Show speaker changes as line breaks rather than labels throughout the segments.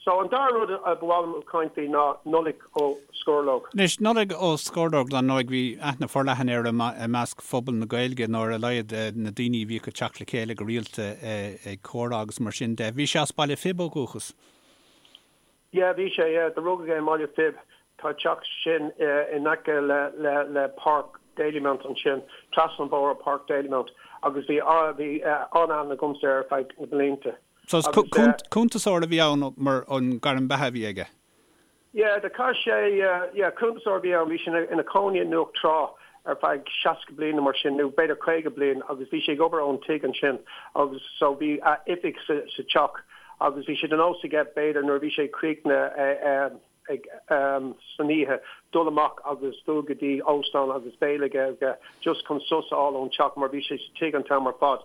So an dara rud a ba mhaith liom caint faoi ná Nollaig Ó Scorlóg.
Anois, Nollaig Ó Scorlóg, dar ndóigh, bhí aithne forleathan air i measc phobal na Gaeilge, nó ar a laghad na daoine a bhíodh ag teacht le chéile go rialta ag comhrá agus mar sin de. Bhí sé as Baile Phib ó dhúchas.
Yeah, bhí sé, yeah. Do rugadh é i mBaile Phib. Tá teach sin in aice le le le Páirc Dalymount ansin, trasna an bóthar ó Páirc Dalymount agus bhí bhí an-aithne agamsa air ar feadh na blianta.
So is cuntasóir a bhí ann mar an gairm beatha a bhí aige?
Yeah, do chaith sé, yeah, cuntasóir a bhí ann, bhí sé ina chónaí i nDumhach Trá ar feadh 60 bliain nó mar sin, nó b'fhéidir 50 bliain agus bhí sé ag obair ón tigh ansin agus so bhí a oifig sa teach agus bhí sé de nós aige b'fhéidir nuair a bhí sé críochnaithe ag san oíche dul amach agus dul go dtí óstán agus béile aige just chun sos a fháil ón teach mar bhí sé sa tigh an t-am ar fad.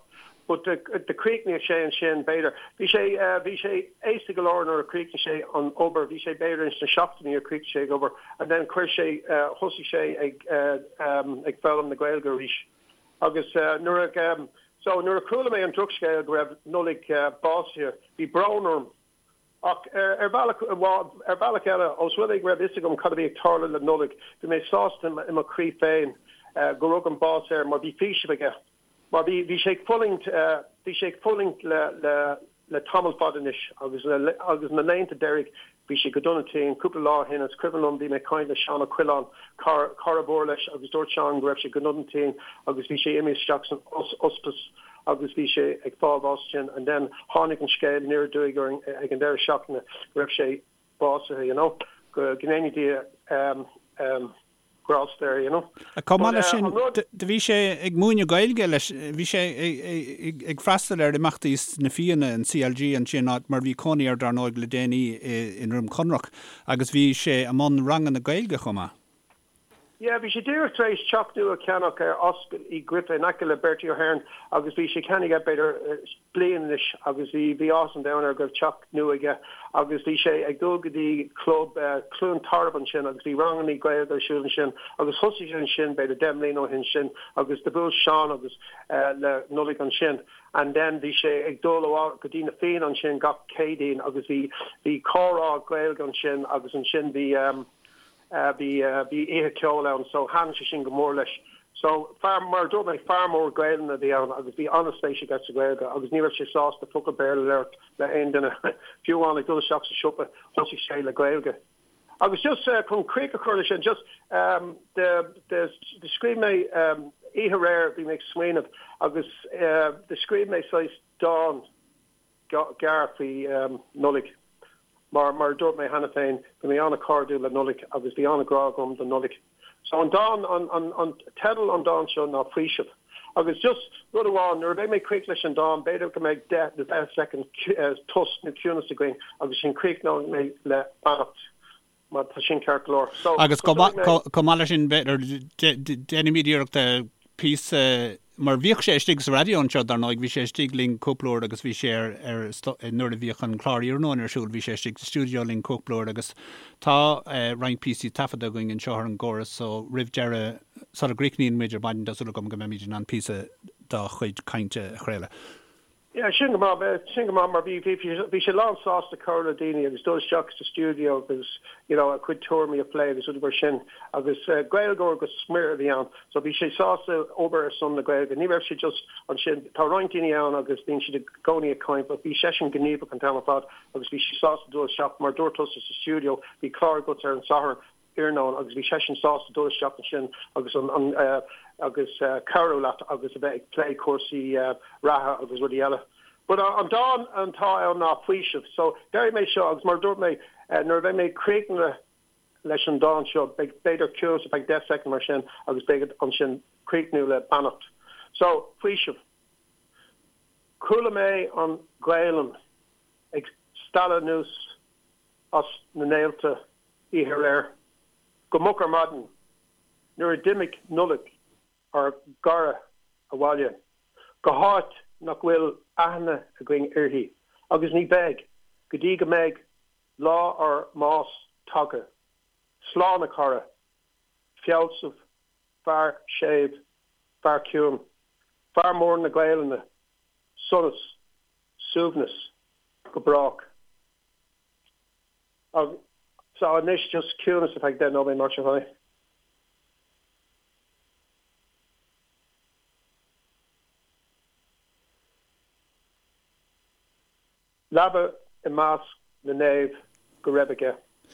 But do chríochnaigh sé ansin b'fhéidir, bhí sé, bhí sé aosta go leor nuair a chríochnaigh sé an obair, bhí sé b'fhéidir ins na seachtóidí a chríochnaigh sé ag obair and then chuir sé, thosaigh sé ag ag foghlaim na Gaeilge arís. Agus nuair a, so nuair a chuala mé an drochscéal go raibh Nollaig básaithe, bhí brón orm. Ach ar bhealach, ar bhealach eile, ós rud é go raibh fhios agam cad a bhí ag tarlú le Nollaig, bhí mé sásta i mo chroí féin go rug an bás air mar bhí faoiseamh aige. Mar bhí, bhí sé ag fulaingt, bhí sé ag fulaingt le, le, le tamall fada anois agus le, agus na laethanta deiridh bhí sé go dona tinn. Cúpla lá ó shin, is cuimhin liom, bhí mé ag caint le Seán Ó Coileáin, cara, cara mhór leis agus dúirt Seán go raibh sé go dona tinn agus bhí sé imithe isteach san ospís. agus bhí sé ag fáil bháis ansin and then tháinig an scéal aniar aduaidh orainn ag an deireadh seachtaine go raibh sé básaithe, you know, go ndéana Dia grásta air, you know.
Chomh maith leis sin, do bhí sé ag múineadh Gaeilge leis, bhí sé ag freastal ar imeachtaí sna Fianna, an CLG ansin, áit mar bhí cónaí air dar ndóigh le déanaí i nDroim Conrach agus bhí sé i mbun ranganna Gaeilge chomh maith.
Yeah, bhí sé díreach tar éis teach nua a cheannach ar Ascaill Uí Ghriofa in aice le Bertie Ahern agus bhí sé ceannaithe aige b'fhéidir bliain anois agus bhí bhí áthas an domhain air go raibh teach nua aige agus bhí sé ag dul go dtí club Cluain Tarbh ansin agus bhí rangannaí Gaeilge ar siúl ansin agus thosaigh sé ansin b'fhéidir 10 mbliana ó shin sin agus do bhuail Seán agus le Nollaig ansin and then bhí sé ag dul go dtí na Fianna ansin gach Céadaoin agus bhí bhí comhrá Gaeilge ansin agus ansin bhí Bhí bhí oíche ceoil ann so thaitin sé sin go mór leis. So fear, mar a dúirt mé, fear mór Gaelainne a bhí ann agus bhí an-spéis aige sa Ghaeilge agus ní raibh sé sásta focal Béarla a labhairt le haon duine. Fiú amháin ag dul isteach sa siopa thosaigh sé le Gaeilge. Agus just chun críoch a chur leis sin, just do do do scríobh mé oíche aréir bhí mé ag smaoineamh agus do scríobh mé saghas dán gearr faoi Nollaig. Mar, mar a dúirt mé cheana féin, bhí mé an-chairdiúil le Nollaig agus bhí an-ghrá agam do Nollaig. So an dán, an, an, an teideal an dán seo ná Faoiseamh. Agus just rud amháin, nuair a bheidh mé críoch leis an dán, b'fhéidir go mbeidh 10 nó 20 soicind tost nó ciúnas againn agus ansin críochnóidh mé le beannacht. Má tá sin ceart go leor.
So, Agus chomh maith leis sin, b'fhéidir, déanfaimid iarracht píosa, mar bhíodh sé istigh sa raidió anseo, dar ndóigh, bhí sé istigh linn cúpla uair agus bhí sé ar, ar, nuair a bhíodh an clár iarnóin ar siúl, bhí sé istigh sa stiúideo linn cúpla uair agus tá roinnt píosaí taifeadta againn anseo ar an gcóras so roimh deireadh, sula gcríochnaíonn muid ar maidin, tá súil agam go mbeimid in ann píosa dá chuid cainte a chraoladh.
Yeah, sin go maith, sin go maith mar bhí, bhí, bhí sé lán sásta comhrá le daoine agus dul isteach sa stiúideo agus, you know, a chuid tuairimí a phlé agus rudaí mar sin agus Gaeilgeoir go smior a bhí ann so bhí sé sásta obair ar son na Gaeilge. Ní raibh sé just ansin, tá roinnt daoine ann agus bíonn siad i gcónaí ag caint but bhí seisean gníomhach an t-am ar fad agus bhí sé sásta dul isteach mar dúirt tusa sa stiúideo, bhí clár agat ar an Satharn iarnóin agus bhí seisean sásta dul isteach ansin agus an an agus cabhrú leat agus a bheith ag plé cúrsaí reatha agus rudaí eile. But an dán atá ann ná faoiseamh. So déarfaidh mé seo agus mar a dúirt mé nuair a bheidh mé críochnaithe leis an dán seo beidh b'fhéidir ciúnas ar feadh 10 soicind mar sin agus beidh ansin críochnú le beannacht. So faoiseamh. Chuala mé an Ghaelainn ag stealladh anuas as na néalta oíche aréir go moch ar maidin nuair a d'imigh Nollaig ár gcara abhaile go háit nach bhfuil aithne againn uirthi agus ní bheidh go dtí go mbeidh lá ár mbás tagtha. Slán a chara, fealsamh, fear séimh, fear ciúin, fear mór na Gaelainne, sonas, suaimhneas go brách. So anois just ciúnas ar feadh 10 nóiméad mar sin féin. Leaba i measc na naomh go raibh aige.